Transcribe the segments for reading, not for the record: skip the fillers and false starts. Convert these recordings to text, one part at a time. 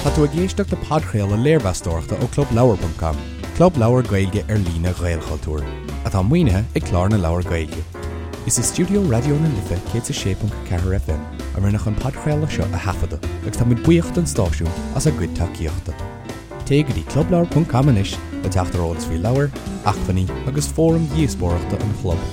Tá tú ag éisteacht le podchraoladh léirmheastóireachta ó ClubLeabhar.com, club leabhar Gaeilge ar líne Ghaelchultúir, atá maoinithe ag Clár na Leabhar Gaeilge. Is i stiúideo Raidió na Life 106.4 FM a rinneadh an podchraoladh seo a thaifeadadh agus tá muid buíoch don stáisiún as a gcuid tacaíochta. Téigh go dtí clubleabhar.com anois le teacht ar eolas faoi leabhair, acmhainní agus fóraim dhíospóireachta an chlub.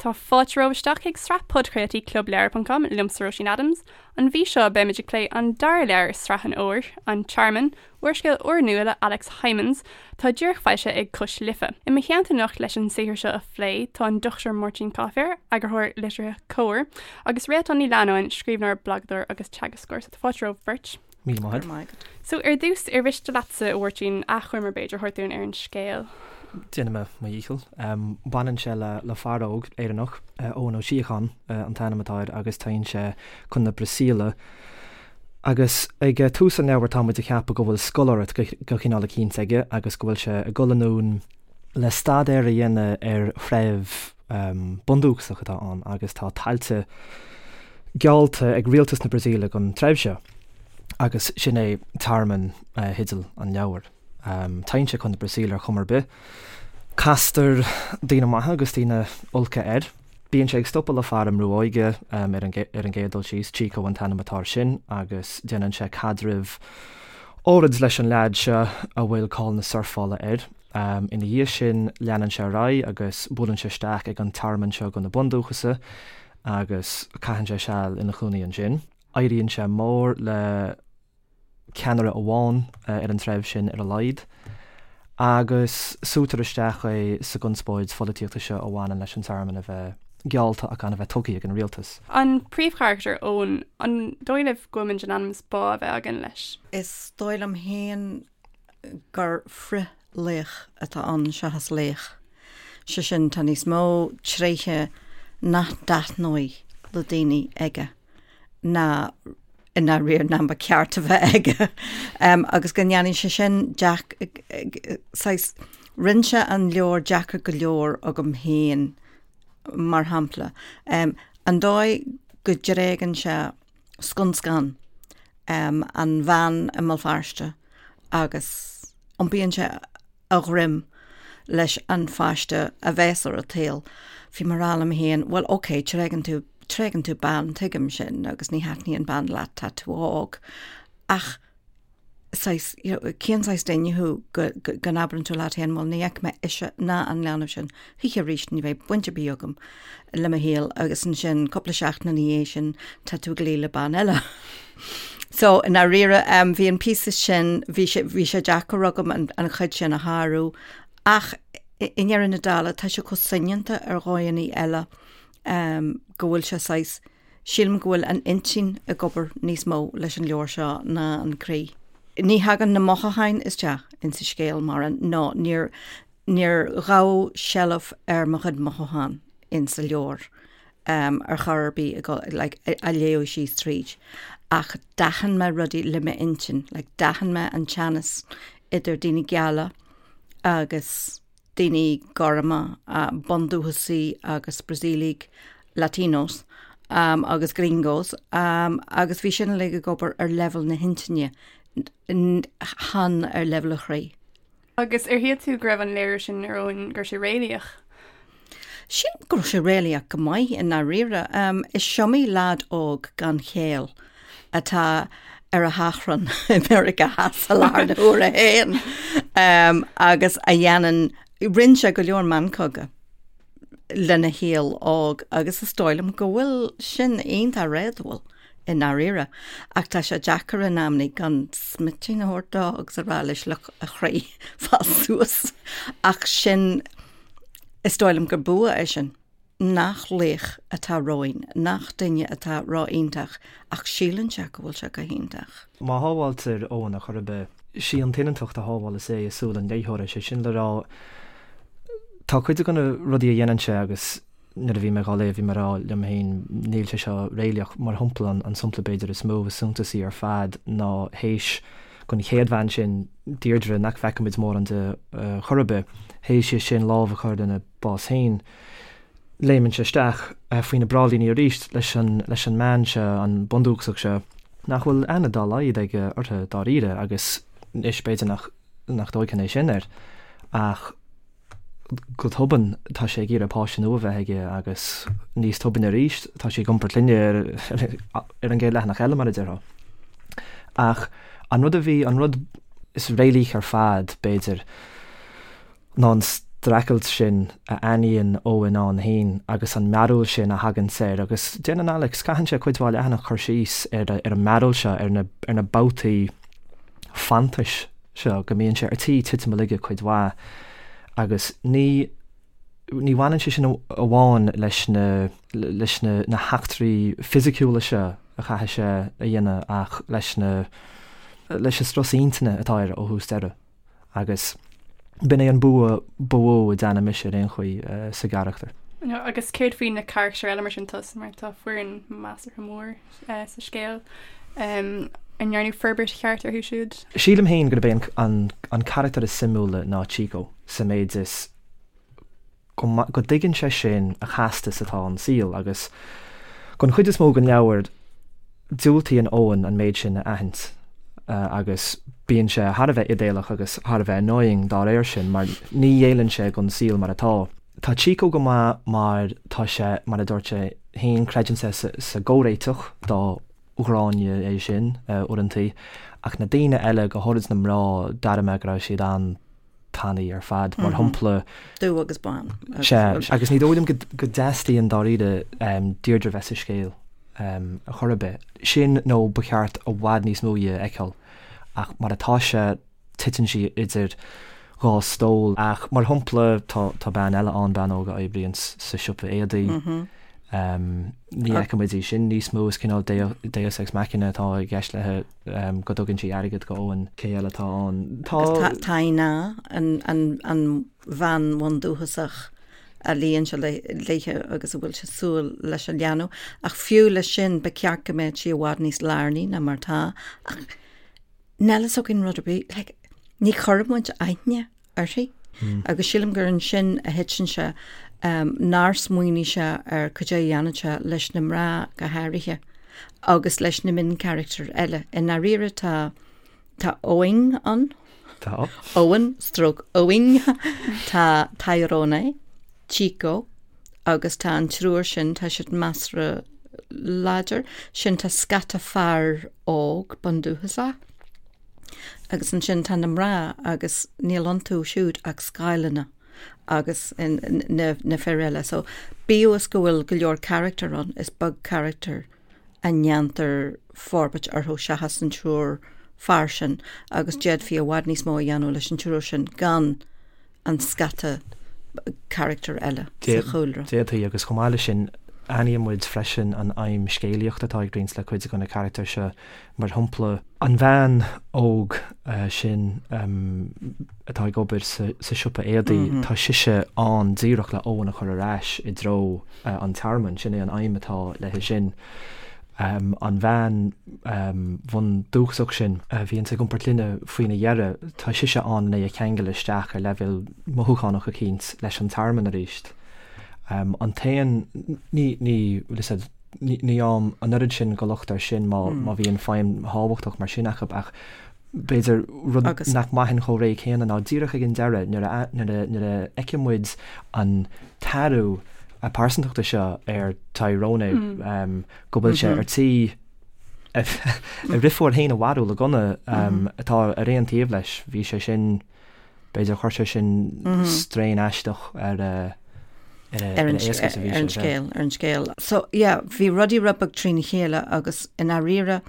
Tá fáilte romhaibh isteach chuig sraith podchraoltaí ClubLeabhar.com liomsa Róisín Adams. An mhí seo beimid ag plé an dara leabhar i sraith an Fhómhair, An Tearmann, úrscéal úrnua le Alex Hijmans, atá díreach foilsithe ag Cois Life. I mo theannta anocht leis an saothar seo a phlé tá an Dr Máirtín Coiféir, eagarthóir liteartha Comhar, agus Réaltán Ní Leannáin, scríbhneoir, blagadóir agus teagascóir. So tá fáilte romhaibh beirt. Míle maith agat. So ar dtús, ar mhiste leatsa, a Mháirtín, achoimre b'fhéidir a thabhairt dúinn ar an scéal? Déanfaidh mé mo dhícheall. Baineann sé le fear óg Éireannach, Eoin Ó Síocháin an t-ainm atá air agus téann sé chun na Brasaíle. Agus ag tús an leabhair tá muid ag ceapadh go bhfuil scoláireacht de chineál eicínt aige agus go bhfuil sé ag dul anonn le staidéar a dhéanamh ar threibh bundúchasach atá ann agus tá tailte geallta ag rialtas na Brasaíle don treibh seo agus sin é tearmann theideal an leabhair. Téann sé chun na Brasaíle ar chuma ar bith. Castar daoine maithe agus daoine olca air. Bíonn sé ag stopadh le fear i mbrú óige ar an gcéad dul síos, Chico an t-ainm atá air sin, agus déanann sé caidreamh áirid leis an leaid seo a bhfuil cáil na surfála air. Ina dhiaidh sin leanann sé ar aghaidh agus buaileann sé isteach ag an tearmann seo do na bundúchasaigh agus caitheann sé seal ina chónaí ansin. Éiríonn sé mór le ceannaire amháin ar an treibh sin ar a laghad agus súitear isteach é sa gconspóid pholaitíochta seo a bhaineann leis an tearmann a bheith geallta ach gan a bheith tugtha ag an rialtas. An príomhcharachtar, Eoin, an dóigh libh go bhfuil muid in ainm is bá a bheith againn leis? Is dóigh liom féin gur frith-laoch atá ann seachas laoch. Sé sin, tá níos mó tréithe nach dtaitneoidh le daoine aige ná i ndáiríre ná ba cheart a bheith aige. Agus go ndéanann sé sin saghas, rinne sé an leabhar deacair go leor agam féin, mar shampla. An dóigh go dtréigeann sé scun scan an bhean i mBéal Feirste agus iompaíonn sé a dhroim leis an pháiste a bheas ar an tsaol. Bhí mé ag rá liom féin, bhuel ok, tréigeann tú, tréigeann tú bean, tuigim sin agus ní thaitníonn bean leat, tá tú óg. Ach saghas, you know, cén saghas duine thú go, go, go n-abrann tú leat féin, bhuel ní fheicfidh mé ise ná an leanbh sin choíche arís, ní bheidh baint ar bith agam le mo shaol agus ansin cúpla seachtain ina dhiaidh sin tá tú ag luí le bean eile. So i ndáiríre um, bhí an píosa sin, bhí sé, bhí sé deacair agam an, an chuid sin a shárú ach i, i ndeireadh na dála tá sé chomh soineanta ar dhóigheanna eile um, go bhfuil sé saghas Sílim go bhfuil an intinn ag obair níos mó leis an leabhar seo ná an croí. Ní thagann na mothúcháin isteach insa scéal mar nó níor níor ghabh seilbh ar mo chuid mothúchán insa leabhar ar chor ar bith ag like á léamh síos tríd. Ach d'aithin mé rudaí le m'intinn, like d'aithin mé an teannas idir daoine geala agus daoine gorma, bundúchasaigh agus Brasaíligh, Latinos agus gringos, agus bhí sin uilig ag obair ar leibhéal na hintinne, chan ar leibhéal an chroí. Agus ar shíl tú go raibh an léiriú sin ar Eoin, go raibh sé réalaíoch? Sílim go raibh sé réalaíoch go maith i ndáiríre. Is iomaí leaid óg gan chéill atá ar a thachrán i Meiriceá Theas i láthair na huaire féin agus a dhéanann, rinne sé go leor meancóga lena shaol óg agus is dóigh liom go bhfuil sin iontach réadúil i ndáiríre. Ach tá sé deacair in amannaí gan smitín a thabhairt dó agus a rá leis look a chroí fás suas. Ach sin, is dóigh liom gur bua é sin. nach laoch atá romhainn, nach duine atá ró-iontach ach síleann sé go bhfuil sé go hiontach. Má shábháiltear Eoin ar chor ar bith, sí an tsoineantacht a shábhálas é i súil an léitheora, sé sin le rá, tá cuid de na rudaí a dhéanann sé agus nuair a bhí mé dhá léamh bhí mé ag rá liom féin níl sé seo réalaíoch. Mar shampla, an sampla b'fhéidir is mó, is suntasaí ar fad ná théis don chéad bhean sin, Deirdre, nach bhfeicimid mórán di chor ar bith, théis di sin lámh a chur lena bás féin. Léimeann sé isteach faoi na bráillíní arís leis an leis an mbean seo, an bundúchasach seo. Nach bhfuil aithne dá laghad aige orthu dáiríre agus anois b'fhéidir nach nach dtóigfinn é sin air ach go tobann tá sé ag iarraidh páiste nua a bheith aige agus níos tobainne arís tá sí ag iompar clainne ar an gcéad leathanach eile mar a déarfá. Ach an rud a bhí, an rud is réalaíche ar fad b'fhéidir, ná an streachailt sin a aithníonn Eoin ann féin agus an mearbhall sin a thaganns air agus déanann Alex, caitheann sé cuid mhaith leathanach cur síos ar an mearbhall seo, ar na, ar na babhtaí fanntais seo, go mbíonn sé ar tí titim a laige cuid mhaith agus ní, ní bhaineann sé sin amháin leis na, leis na, na heachtraí fisiciúla seo a chaithfidh sé a dhéanamh ach leis na, leis an strus intinne atá air ó thús deireadh. Agus b'in é an bua ba mhó a d'aithnigh mise ar aon chaoi sa gcarachtar. Agus céard faoi na carachtair eile mar sin tá mar tá foireann measartha mór sa scéal. An ndearnadh forbairt cheart orthu siúd? Sílim féin gurb é an carachtar is suimiúla ná Chico sa méid is go dtuigeann sé sin a chasta is atá an saol agus don chuid is mó den leabhar diúltaíonn Eoin an méid sin a aithint agus bíonn sé thar a bheith idéalach agus thar a bheith annoying dá réir sin mar ní ghéilleann sé don saol mar atá. Tá Chico go maith mar tá sé, mar a dúirt sé féin, creideann sé sa gcomhréiteach dá ghráinne é sin uaireantaí ach na daoine eile, go háirid na mná, d'airigh mé go raibh siad an tanaí ar fad, mar shampla. Dubh agus bán. Sea, agus ní dóigh liom go dteastaíonn dáiríre Deirdre bheith sa scéal ar chor ar bith. Sin nó ba cheart i bhfad níos mó dhi a fheiceáil, ach mar atá sé, titeann sí idir dhá stól. Ach mar shampla, tá bean eile ann, bean óg a oibríonn sa siopa éadaí. Ní fheicimid í sin níos mó, is cineál deus ex machina atá i gceist léi. go dtugann sí airgead go Eoin. Cé eile atá ann? Tá. Agus Tainá, an bhean bhundúchasach a luíonn sé léithe agus a bhfuil sé súil leis an leanbh. Ach fiú leis sin, ba cheart go mbeadh sí i bhfad níos lárnaí ná mar atá. Ach níl fhios againn rud ar bith. Like, ní chuireann muid aithne uirthi. Agus sílim gur ansin a thiteann sé, nár smaoinigh sé ar cad é a dhéanfadh sé leis na mná go háirithe agus leis na mioncharachtair eile. I ndáiríre tá tá Eoin ann. Tá. Owen stroke Eoin. Tá Tyrone, Chico agus tá an triúr sin, tá siad measartha láidir. Sin tá scata fear óg bundúchasach. Agus ansin tá na mná agus níl iontu siúd ach scáileanna agus na fir eile. So bíodh is go bhfuil go leor carachtar ann, is beag carachtar a ndéantar forbairt orthu seachas an triúr fear sin agus d'fhéadfaí i bhfad níos mó a dhéanamh leis an triúr sin gan an scata carachtar eile sa chúlra. D'fhéadfaí, agus chomh maith leis sin, aithníonn muid freisin an aidhm scéalaíochta atá ag roinnt le cuid de na carachtair seo, mar shampla, an bhean óg sin atá ag obair sa siopa éadaí, tá sise ann díreach le Eoin a chur ar ais i dtreo an tearmainn, sin é an aidhm atá léi sin. An bhean bhundúchasach sin a bhíonns ag iompar clainne faoina dheireadh, tá sise ann len é a cheangal isteach ar leibhéal mothúchánach eicínt leis an tearmann arís. An t-aon, ní, ní, bhfuil fhios a'd, ní fhaighim an oiread sin de locht air sin má má bhíonn feidhm thábhachtach mar sin acu ach b'fhéidir rud nach mbraithfinn chomh réidh céanna ná díreach ag an deireadh nuair a nuair a nuair a fheiceann muid an t-athrú pearsantachta seo ar Tyrone go bhfuil sé ar tí a dheirfiúr féin a mharú le gunna atá ar aon taobh leis. Bhí sé sin B'fhéidir chuir sé sin strain aisteach ar a ar an scéal, ar an scéal. So yeah, bhí rudaí rud beag trína chéile agus i ndáiríre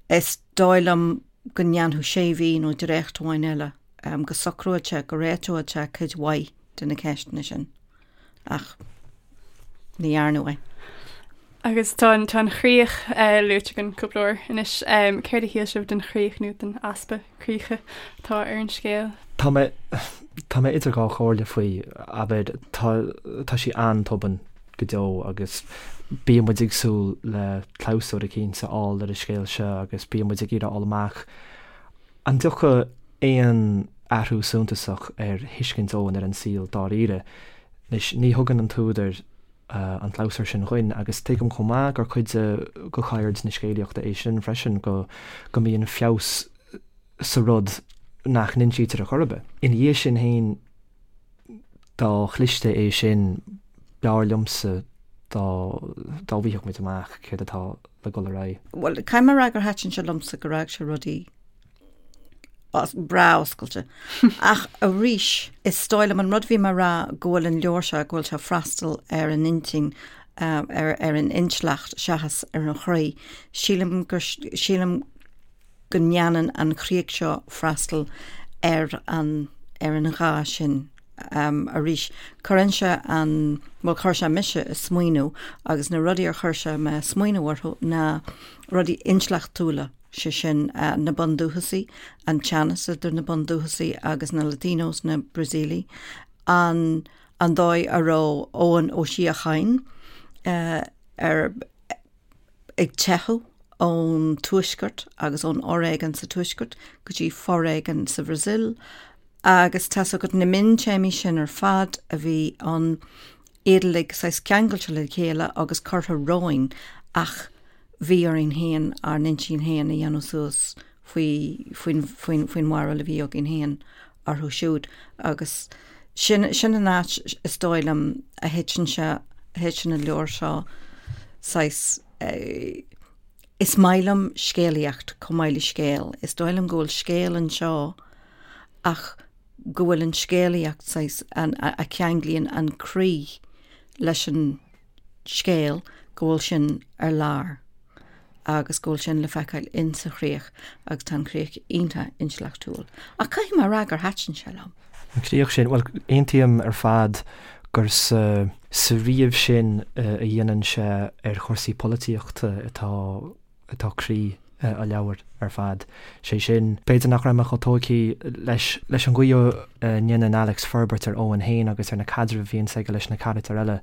is dóigh liom go ndéanfadh sé mhí nó dréacht amháin eile go socródh sé, go réiteodh sé cuid mhaith de na ceisteanna sin. Ach ní dhearnadh é. Agus tá an tá an chríoch luaite againn cúpla uair anois. Céard a shíl sibh den chríoch nó den easpa críche atá ar an scéal? Tá mé tá mé idir dhá chomhairle faoi. Abair, tá tá sí an-tobann go deo agus bíonn muid ag súil le clabhsúr eicínt a fháil ar an scéal seo agus bíonn muid ag iarraidh a fháil amach An dtiocfaidh aon athrú suntasach ar thuiscint Eoin ar an saol dáiríre? Anois, ní thugann an t-údar. an clabhsúr sin dhuinn agus tuigim chomh maith gur cuid de cheird na scéalaíochta é sin freisin, go go mbíonn feabhas sa rud nach n-insítear ar chor ar bith. Ina dhiaidh sin féin, dá chliste é sin, b'fhearr liomsa dá dá bhfaighfeadh muid amach céard atá le dul ar aghaidh. Bhuel, caithfidh mé a rá gur thaitin sé liomsa gur fhág sé rudaí breá oscailte. Ach arís, is dóigh liom an rud a bhí mé a rá go bhfuil an leabhar seo, go bhfuil sé ag freastal ar an intinn, ar ar an intleacht seachas ar an chroí. Sílim gur, sílim go ndéanann an chríoch seo freastal ar an ar an ghá sin. Arís, cuireann sé an, bhuel chuir sé mise ag smaoineamh agus na rudaí ar chuir sé mé ag smaoineamh orthu ná rudaí intleachtúla, sé sin na bundúchasaigh, an teannas idir na bundúchasaigh agus na Latinos, na Brasaíligh, an an dóigh a raibh Eoin Ó Síocháin ar ag teitheadh ón tuaisceart agus ón fhoréigean sa tuaisceart go dtí foréigean sa Bhrasaíl agus tá's agat na miontéamaí sin ar fad a bhí ann, iad uilig saghas ceangailte le chéile agus curtha romhainn ach bhí orainn féin ár n-intinn féin a dhéanamh suas faoi, faoin, faoin, faoin bharúil a bhí againn féin orthu siúd agus sin, sin an áit is dóigh liom a thiteann sé, a thiteann an leabhar seo saghas eh, is maith liom scéalaíocht chomh maith le scéal, is dóigh liom go bhfuil scéal anseo ach go bhfuil an scéalaíocht saghas, an, a, a cheanglaíonn an croí leis an scéal, go bhfuil sin ar lár agus go bhfuil sin le feiceáil in sa chríoch agus tá an chríoch iontach intleachtúil. Ach caithfidh mé a rá gur thaitin sé liom. An chríoch sin, bhuel, aontaím ar fad gur sa sa ríomh sin a dhéanann sé ar chúrsaí polaitíochta atá atá croí an leabhair ar fad. Sé sin, b'fhéidir nach raibh mé chomh tógtha leis leis an gcaoi a ndéanann Alex forbairt ar Eoin féin agus ar na caidrimh a bhíonns aige leis na carachtair eile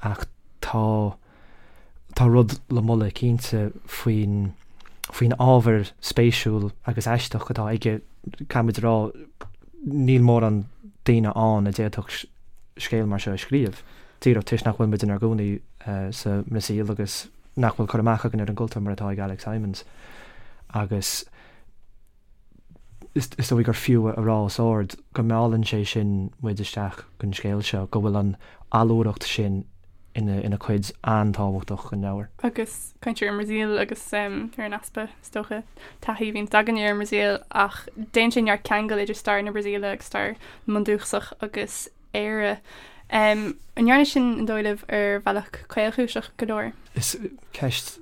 ach tá tá rud le moladh cinnte faoin faoin ábhar spéisiúil agus aisteach atá aige. Caithfimid a rá, níl mórán daoine ann a d'fhéadfadh scéal mar seo a scríobh, díreach toisc nach bhfuil muid inár gcónaí sa mBrasaíl agus nach bhfuil cur amach againn ar an gcultúr mar atá ag Alex Hijmans. Agus is dóigh gur fiú a rá os ard go meallann sé sin muid isteach don scéal seo, go bhfuil an allúracht sin ina cuid an-tábhachtach den leabhar. Agus caint ar an mBrasaíl agus ar an easpa, is dócha, taithí a bhíonns againne ar an mBrasaíl ach déanann sé neart ceangal idir stair na Brasaíle agus stair na mbundúchasach agus Éire. An ndearna sin, an dóigh libh, ar bhealach caolchúiseach go leor? Is ceist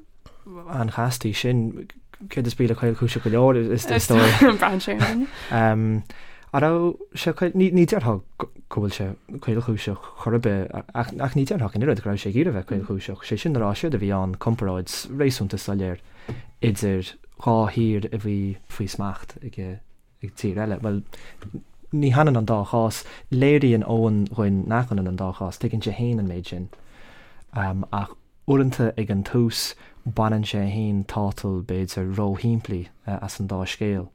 an-chasta í sin. Céard is brí le caolchúiseach go leor, is dóigh? Braitheann sé ar an duine. An raibh sé caol, ní déarfá go bhfuil sé caolchúiseach chor ar bith, ach ní déarfá ach an oiread go raibh sé ag iarraidh bheith caolchúiseach. Sé sin le rá, séard a bhí ann, comparáid réasúnta soiléir idir dhá thír a bhí faoi smacht ag ag tír eile. Bhuel, ní hionann an dá chás. Léiríonn Eoin dhuinn nach ionann an dá chás. Tuigeann sé féin an méid sin. Ach uaireanta ag an tús, baineann sé féin tátal b'fhéidir róshimplí as an dá scéal.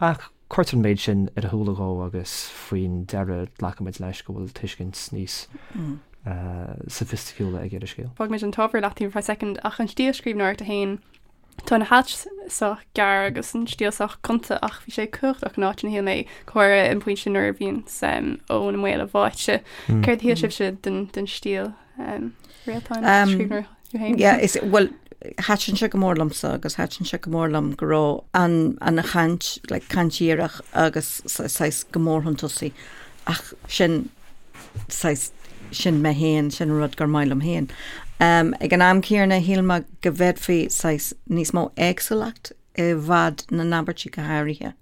Ach cuirtear an méid sin ar a shúile dhó agus faoin deireadh glacaimid leis go bhfuil tuiscint níos soifisticiúla aige ar an scéal. Fágfaimid an t-ábhar i leataobh ar feadh soicind ach an stíl scríbhneoireachta féin, Tá na hailt sách gearr agus an stíl sách gonta ach bhí sé cumhachtach in áiteanna shíl mé, go háirithe an pointe nuair a bhíonn Eoin i mbaol a bháite. Céard a shíl sibhse den den stíl Réaltán scríbhneoir tú féin? Yeah, is bhuel thaitin sé go mór liomsa agus thaitin sé go mór liom go raibh an an chaint like caint dhíreach agus saghas go mór chun tosaigh ach sin saghas, sin mé féin, sin an rud gur maith liom féin. Ag an am céanna, shíl mé go bhféadfaí saghas níos mó éagsúlacht i bhfad na n-abairtí go háirithe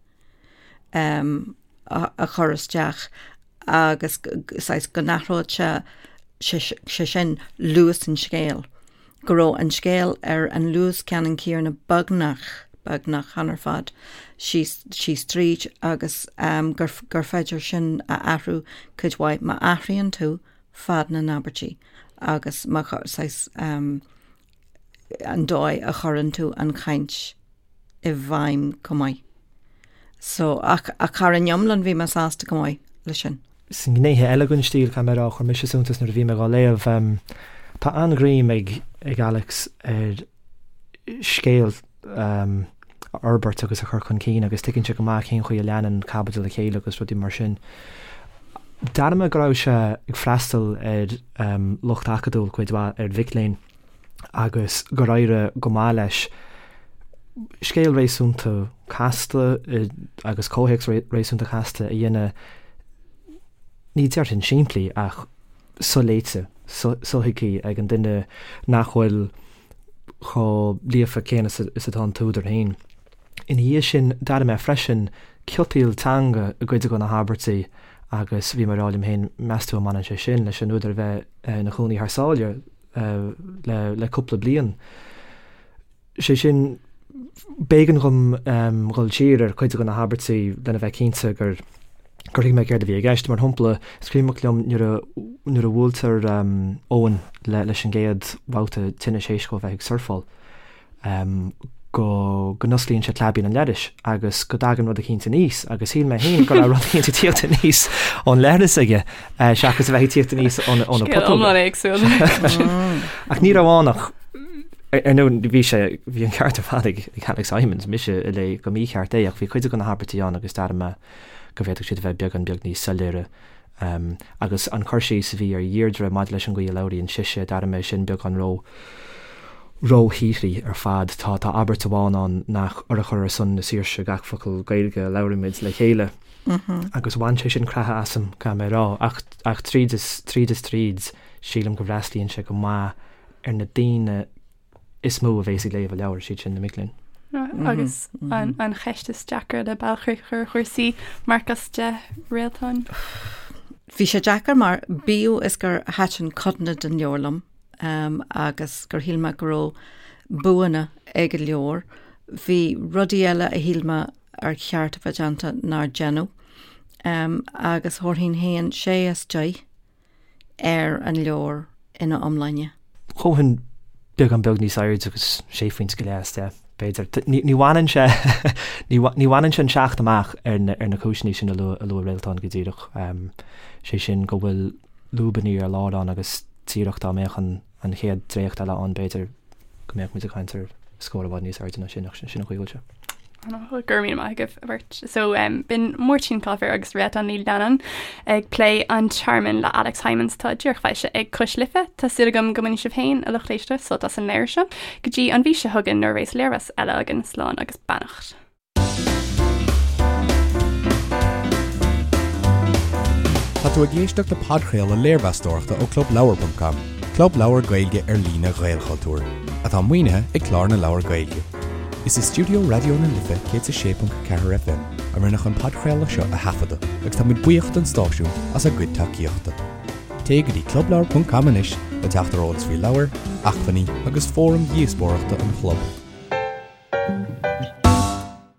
a chur isteach agus saghas go n-athródh sé sé sin luas an scéil. go raibh an scéal ar an luas ceannann céanna beagnach, beagnach, chan ar fad, síos, síos tríd agus gur, gur féidir sin a athrú cuid mhaith má athraíonn tú fad na n-abairtí agus má, saghas, an dóigh a chuireann tú an chaint i bhfeidhm chomh maith. So, ach, ach thar an iomlán bhí mé sásta go maith leis sin. Sna gnéithe eile den stíl, caithfidh mé a rá, chuir mise suntas nuair a bhí mé dhá léamh. Tá an-ghreim ag ag Alex ar scéal a fhorbairt agus a chur chun cinn agus tuigeann sé go maith cén chaoi a leanann caibidil a chéile agus rudaí mar sin. D'airigh mé go raibh sé ag freastal ar lucht acadúil cuid mhaith, ar mhic léinn, agus gur éirigh go maith leis scéal réasúnta casta agus comhthéacs réasúnta casta a dhéanamh, ní déarfainn simplí ach soléite, sothuigthe ag an duine nach bhfuil chomh líofa céanna is atá an t-údar féin. Ina dhiaidh sin, d'airigh mé freisin ciotaíl teanga i gcuid de na habairtí agus bhí mé ag rá liom féin, meas tú an mbaineann sé sin leis an údar a bheith ina chónaí thar sáile le cúpla bliain? Sé sin, b'éigean dhom dhul siar ar chuid de na habairtí lena bheith cinnte gur gur thuig mé céard a bhí i gceist. Mar shampla, is cuimhneach liom nuair a nuair a bhuailtear Eoin le leis an gcéad bhabhta tinnis théis dhó a bheith ag surfáil, go go n-osclaíonn sé claibín an leithris agus go dtagann rud eicínt aníos agus shíl mé féin go raibh rud eicínt ag tíocht aníos ón leithreas aige seachas a bheith ag tíocht aníos óna óna Scéal putóga. iomlán éagsúil. Ach ní raibh ann ach ar ndóigh bhí sé bhí an ceart ar fad ag ag Alex Hijmans, mise a léigh go mícheart é ach bhí cuid de na habairtí ann agus d'airigh mé go bhféadfadh siad a bheith beagán beag níos soiléire. Agus an cur síos a bhí ar Dheirdre maidir leis an gcaoi a labhraíonn sise, d'airigh mé sin beagán ró róshíothraí ar fad. Tá tá abairt amháin ann nach urchar ar son na saoirse gach focal Gaeilge a labhraímid le chéile. Agus bhain sé sin creathadh asam, caithfidh mé a rá. Ach ach tríd is tríd is tríd, sílim go bhfreastlaíonn sé go maith ar na daoine is mó a bhéas ag léamh an leabhair, siad sin na mic léinn. Agus an cheist is deacra le bailchríoch ar chúrsaí, marc as 10 Réaltán? Bhí sé deacair mar bíodh is gur thaitin codanna den leabhar liom agus gur shíl mé go raibh buanna ag an leabhar, bhí rudaí eile a shíl mé ar cheart a bheith déanta nár deineadh. Agus thabharfainn féin sé as 10. ar an leabhar ina iomláine. Thabharfainn beagán beag níos airde agus sé phointe go leith as 10, b'fhéidir. Ní bhaineann sé ní bhaineann sé an 7 amach ar na ar na cúiseanna sin a luaigh a luaigh Réaltán go díreach. Sé sin go bhfuil lúbanna ar lár ann agus díreach dá mbeadh an an chéad dréacht eile ann b'fhéidir go mbeadh muid ag caint ar scór i bhfad níos airde ná sin ach sin an chaoi a bhfuil sé. Go raibh míle maith agaibh a bheirt. So um, b'in Máirtín Coiféir agus Réaltán Ní Leannáin ag plé An Tearmann le Alex Hijmans atá díreach foilsithe ag Cois Life. Tá súil agam go mbainfidh sibh féin a lucht éisteachta sult as an léamh seo. Go dtí an mhí seo chugainn nuair a bheas léirmheas eile againn slán agus beannacht. Tá tú ag éisteacht le podchraoladh léirmheastóireachta ó ClubLeabhar.com, club leabhar Gaeilge ar líne Ghaelchultúir, atá maoinithe ag Clár na Leabhar Gaeilge. Is i stiúideo Raidió na Life 106.4 FM a rinneadh an podchraoladh seo a thaifeadadh agus tá muid buíoch don stáisiún as a gcuid tacaíochta. Téigh go dtí clubleabhar.com anois le teacht ar eolas faoi leabhair, acmhainní agus fóraim dhíospóireachta an chlub.